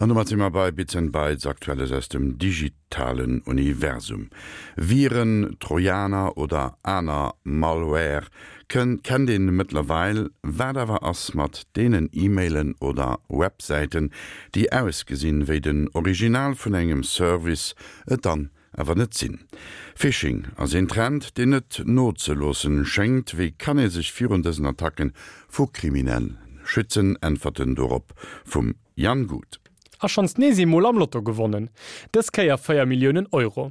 An domat si mer bei Bits and Bytes, Aktuelles aus dem digitalen Universum. Viren, Trojaner oder aner Malware kennt een mëttlerweil. Wat awer ass mat deenen E-Mailen oder Websäiten, déi ausgesinn wéi den Original vun engem Service, et dann awer net sinn. Phishing ass een Trend, deen net nozeloossen schéngt. Wéi kann ee sech virun dësen Attacken vu Kriminellen schützen? Äntwerten dorop vum Jan Guth. A schonns nees eemol am Lotto gewonnen, dës Kéier 4 Milliounen Euro.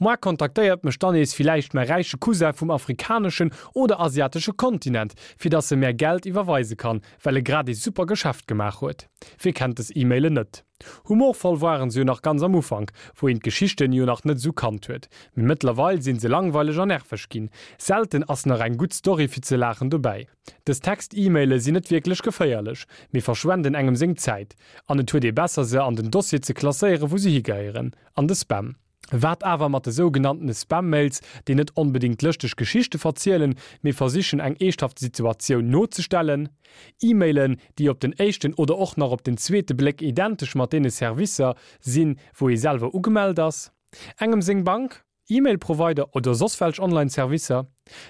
Moar kontaktéiert mech dann nees villäicht mäi räiche Cousin vum afrikaneschen oder asiatesche Kontinent, fir dass e mär Geld iwwerweise kann, well e grad ee super Geschäft gemaach huet. Wie kennt des E-Mailen net? Humorvoll waren se jo nach ganz am Ufank, wou een d'Geschichten jo nach net esou kannt huet, mee mëttlerweil sinn se langweileg an nerveg ginn. Selten ass nach eng gutt Story fir ze laachen dobäi. Dës Text-E-Maile sinn net wierklech geféierlech, mee verschwenden engem seng Zäit an et huet ee besser se an den Dossier ze klasséieren wou se higehéieren, an de Spam. Wat awer mat de sougenanntene Spam-Mails, déi net onbedéngt lëschteg Geschichte verzielen, mee versichen eng eeschthaft Situatioun nozestellen? E-Mailen, déi op den éischten oder och nach op den zweete Bléck identesch mat deene Servicer sinn, wou ee selwer ugemellt ass? Engem seng Bank, E-Mail-Provider oder soss welch Online-Servicer?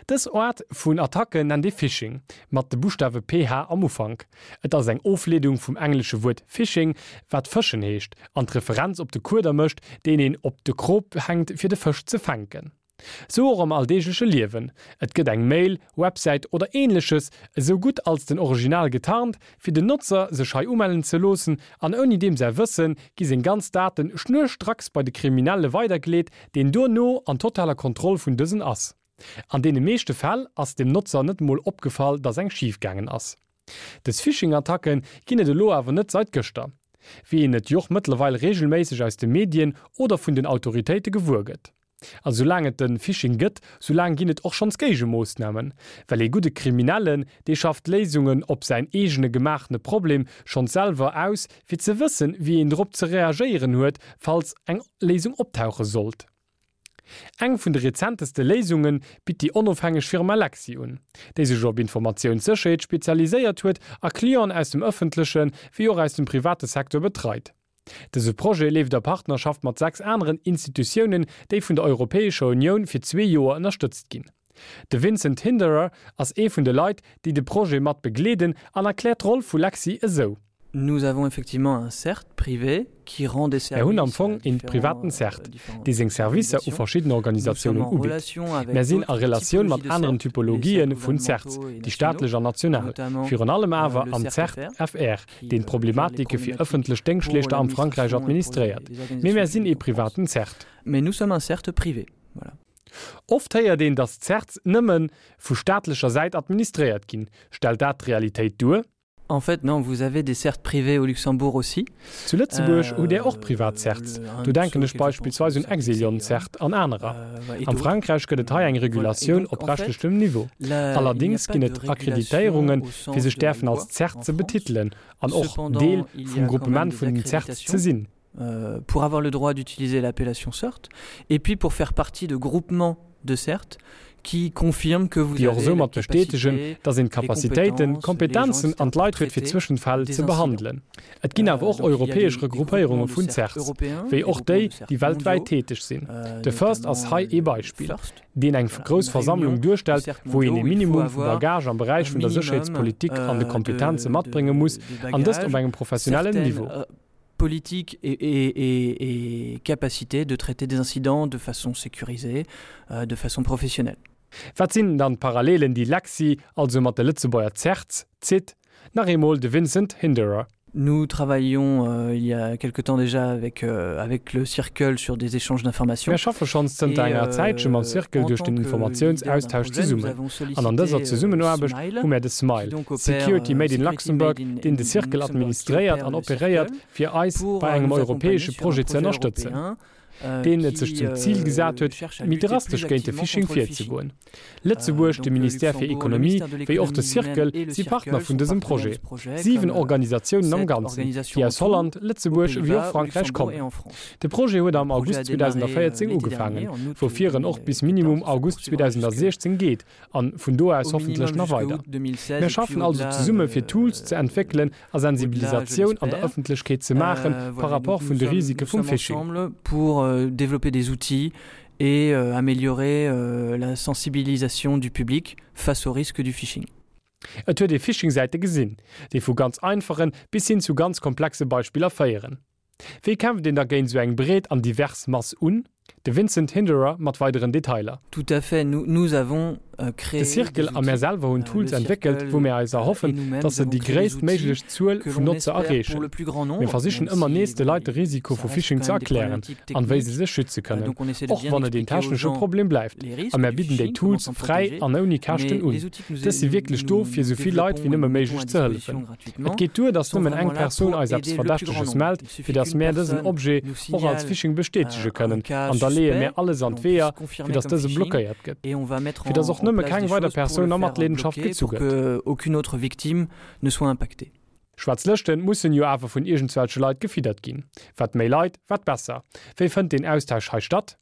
Dës Aart vun Attacken nennt ee Phishing, mat de Buschtawe PH am Ufank. Et ass eng Ofleedung vum englesche Wuert fishing, wat fëschen heescht, an d'Referenz op de Kueder mécht, deen een op de Krop hänkt fir de Fësch ze fänken. Sou och am alldeegleche Liewen, Et gëtt eng Mail, Websäit oder ähnleches esou gutt als den Original getarnt, fir den Notzer sech hei umellen ze loossen, an ouni deem säi Wësse gi seng ganz Daten schnurstracks bei de Kriminelle weidergeleet, deen duerno an totaler Kontroll vun dësen ass. An deene meeschte Fäll ass dem Notzer net mol opgefall, dass eng schif gaangen ass. Des Phishing-Attacken ginn et elo awer net seit gëschter, wéi een et joch mëttlerweil regelméisseg aus de Medien oder vun den Autoritéite gewuer gëtt. A soulaang et de Phishing gëtt, soulaang ginn et och schonns Géigemoossnamen. Well ee gudde Kriminellen, dee schafft Léisungen op säin eegene gemaachene Problem schonns selwer aus, fir ze wëssen, wéi een drop ze reagéieren huet, falls eng Léisung optauche sollt. Eng vun de rezenteste Léisunge bitt déi onofhängeg Firma Lexi un, déi sech op Informatiounssécherheet spezialiséiert huet a Clienten aus dem ëffentleche wéi och aus dem private Secteur betreit. Dëse Projet leeft a Partnerschaft mat 6 aneren Institutiounen, déi vun der Europäescher Unioun fir zwee Joer ënnerstëtzt ginn. De Vincent Hinderer ass ee vun de Leit, déi de Projet mat begleeden an erkläert d'Roll vu Lexi esou. Nous avons effectivement un CERT privé qui rend des Mär hunn services am à Fong een différents privaten CERT, différentes dee seng Servicer u organisations. verschidden Nous sommes Organisatiounen en ubitt. relation avec Mär sinn a d'autres Relatioun mat typologies de aneren CERT, les CERT Typologië vun CERTs, gouvernementaux et déi nationaux, staatlech an national, notamment virun allem awer le am CERT CERT FR FR, qui deen gère les d'Problematike fir problématiques ëffentlech pour Déngschtleeschter am Frankräich l'administration et pour administréiert. les Mee organisations mär sinn ee publiques en France. privaten CERT. Mais nous sommes un CERT privé, voilà. Oft héiert een, datt d'CERTs nëmme vu staatlecher Säit administréiert ginn. Stellt dat d'Realitéit duer? En fait, non, vous avez des CERT privés au Luxembourg aussi. Zu Lëtzebuerg hutt Där och privat CERTs, do denken ech beispillsweis un Exilion CERT an anerer. Am Frankräich gëtt et hei eng Regulatioun op rechtlechem Niveau. Allerdéngs ginn et Akkreditéierungen, fir sech däerfen als CERT ze betitelen an och Deel vum Gruppement vun den CERTs ze sinn. Pour avoir le droit d'utiliser l'appellation CERT et puis pour faire partie de groupements de CERT qui confirme que vous déi och avez la esoumat bestätegen, capacité, datt een les d'Capacitéiten, compétences, les gens, d'Kompetenzen etc. an pour d'Leit huet fir traiter Zwëschenfäll des ze incidents. behandelen. Et ginn awer Euh, och donc il y a europäesch des, des Regroupéierunge groupements de vun CERT CERTs, européens, wéi des och groupements déi, de CERT déi weltwäit mondiaux, täteg sinn. euh, De First ass notamment hei ee le Beispill, FIRST, deen eng voilà, grouss une Versammlung réunion de duerstellt, CERT wou een mondiaux ee où il faut Minimum vu avoir Bagage am un Beräich vun der minimum Sécherheetspolitik an de euh, Kompetenze de, matbrénge muss, de, de an dëst op bagages, engem professionellen certaines Niveau. euh, politique et, et, et, et capacité de traiter des incidents de façon sécurisée, euh, de façon professionnelle. Wat sinn dann d'Parallelen, déi Lexi also mat de Lëtzebuerger CERTs zitt? Nach eemol de Vincent Hinderer. Nous travaillions euh, il y a quelque temps déjà avec, euh, avec le Circle sur des échanges d'informations. Mir schaffe schonns zënter Et enger Zäitche mam euh, Circle en duerch tant den que leader d'un Informatiounsaustausch projet, nous zesummen. avons An an dëser sollicité euh, Zesummenaarbecht Smile, hu mär de qui Smile, donc opère Security euh, Made in Security Luxembourg, Made in, deen de in Circle Luxembourg, qui administréiert opère an le operéiert, Circle, fir eis pour bei euh, engem nous accompagner europäesche sur un Projet ze projet ënnerstëtzen. européen. deen et sech zum Zil gesat huet, méi drastesch géint de Phishing virzegoen. Lëtzebuerg, de Ministère fir Ekonomie wéi och de Circle si Partner vun dësem Projet. 7 Organisatiounen am Ganzen, déi aus Holland, Lëtzebuerg ewéi och Frankräich kommen. De Projet huet am August 2014 ugefaangen, woufir en och bis minimum August 2016 geet an vun do aus hoffentlech nach weider. Mir schaffen also zesumme fir Tools ze entwéckelen a Sensibilisatioun an der Ëffentlechkeet ze maache par rapport vun de Risike vum Phishing. Et améliorer la sensibilisation du public face aux risques du phishing. Et huet ee Phishing-Säite gesinn, déi vu ganz einfachen bis hin zu ganz komplexe Beispiller féieren. Wéi kämpft een da géint esou eng breet an divers Mass un? De Vincent Hinderer mat weideren Detailer. Tout à fait, nous, nous avons De Circle a mär selwer hunn Tools entwéckelt, wou mär eis erhoffen, dass se déi gréisst méiglech Zuel vun Notzer erreechen. Mir versichen ëmmer nees, de Leit de Risiko vu Phishing ze erklären an wéi se sech schütze kënnen, och wann et een technesche Problem bleift. A mär bidden déi Tools fräi an ouni Käschten un. Dës si wierklech do, fir esou vill Leit wéi nëmme méiglech ze hëllefen. Et geet duer, dass nëmmen eng Persoun eis eppes Verdächteges mellt, fir dass mär dësen Objet och als Phishing bestätege kënnen, an da leeë mär alles an d'Weeër, fir dass dëse blockéiert gëtt, fir dass och nëmme keng weider Persoun a Matleedenschaft gezu gëtt. Schwaarz Lëschten mussen jo awer vun iergendswelche Leit gefiddert ginn. Wat méi Leit, wat besser. Wéi fënnt deen Austausch hei statt?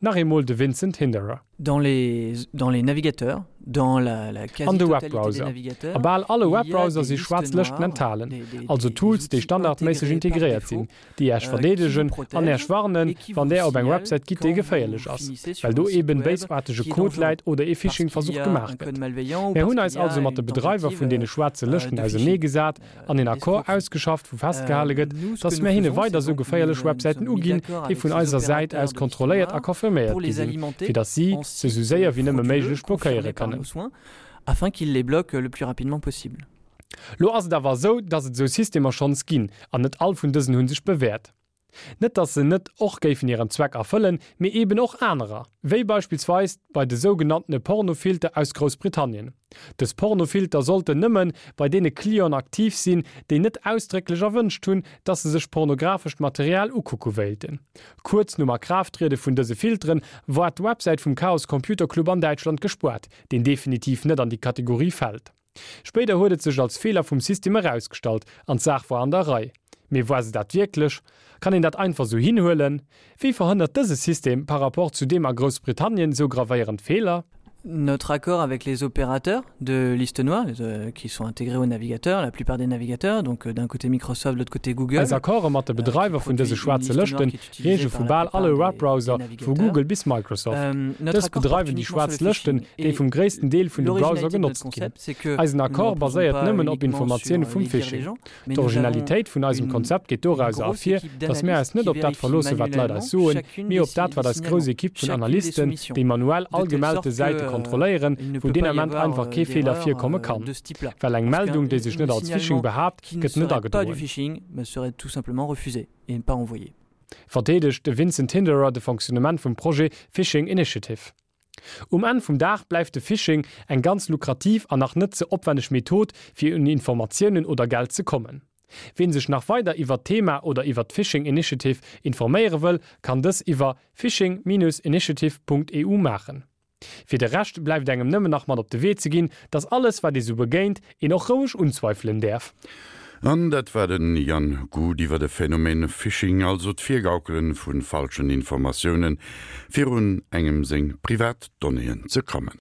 Nach eemol de Vincent Hinderer. Dans les, dans les navigateurs, dans la, la An de quasi-totalité Webbrowser. des A navigateurs, bal alle il y a Webbrowser des si listes schwaarz Lëschten noires, enthalen, des, des, also des, des Tools, déi outils standardméisseg intégrés par integréiert sinn, défaut déi Äech euh, qui vous verdeedegen an protègent Äech warnen, et qui wann vous Där op eng signalent Websäit gitt, déi quand vous geféierlech ass, finissez sur well un do site eben web béisaartege qui est Code dangereux, läit oder ee parce qu'il y Phishing-Versuch a gemaach un gëtt. code malveillant ou Mär parce hunn qu'il eis y a also mat de une Bedreiwer tentative vun deene schwaarze euh, Lëschten de ausernee phishing, gesat euh, an een Accord d'escroquerie. ausgeschafft, wou festgehale Euh, gëtt, nous, ce que dass nous mär hinne faisons, c'est weider esou donc nous geféierlech nous Websäiten sommes mis uginn, d'accord déi avec vun ces eiser Säit opérateurs aus de listes kontrolléiert a noires confirméiert pour gi les sinn, alimenter fir dass si en se sou sites séier wéi nëmme frauduleux méiglech blockéiere confirmés par kënnen. nos soins, afin qu'ils les bloquent le plus rapidement possible. Lo ass et awer esou, dass et esou Systemer schonns ginn, an net all vun dësen hu sech bewäert. Net dass se net och géifen hiren Zweck erfëllen, mee eben och anerer, wéi beispillsweis bei de sougenanntene Pornofilter aus Groussbritannien. Dës Pornofilter sollten nëmmen bei deene Clienten aktiv sinn, déi net ausdrécklech erwënscht hunn, dass se sech pornographescht Material ukucke wéilten. Kuerz nom Akraafttriede vun dëse Filteren war d'Websäit vum Chaos Computer Club an Däitschland gespuart, deen definitiv net an déi Kategorie fält. Spéider huet et sech als Feeler vum System erausgestallt an d'Saach war an der Rei. Mee war se dat wierklech? Kann een dat einfach sou hinhuelen? Wéi verhënnert dëse System par rapport zu deem a Groussbritannien sou gravéierend Feeler? Notre accord avec les opérateurs de liste noire euh, qui sont intégrés au navigateur, la plupart des navigateurs, donc euh, d'un côté Microsoft, de l'autre côté Google. Eis Accorde mat de Bedreiwer vun dëse schwaarze Lëschten reeche vu bal alle Webbrowser, vu Google bis Microsoft. Dës bedreiwen déi schwaarz Lëschten, déi vum gréissten Deel vun de Browser genotzt ginn. Eisen Accord baséiert nëmmen op Informatioune vum Phishing. D'Originalitéit vun eisem Konzept geet dorauser ervir, datt mär eis net op dat verloosse wat d'Leit eis soen, mee op dat wat eis grouss Ekipp vun Analysten, déi manuell all gemellte Säite kontrolléieren, wou deen Ament einfach kee Feeler virkomme kann. Well eng Meldung, déi sech net als Phishing behaapt, gëtt net agedroen. Verdeedegt de Vincent Hinderer de Fonctionnement vum Projet Phishing Initiative. Um Enn vum Dag bleift de Phishing eng ganz lukrativ an nach net ze opwenneg Method, fir un Informatiounen oder Geld ze kommen. Ween sech nach weider iwwert d'Thema oder iwwert d'Phishing Initiative informéiere wëll, kann dës iwwer phishing-initiative.eu maachen. Fir de Rescht bleift engem nëmmen nach mat op de Wee ze ginn, dass alles wat ee sou begéint, een och roueg unzweifelen däerf. An dat war den Jan Guth iwwer de Phänomen Phishing, also d'Virgaukelen vu falschen Informatiounen, fir un engem seng privat Donnéeën ze kommen.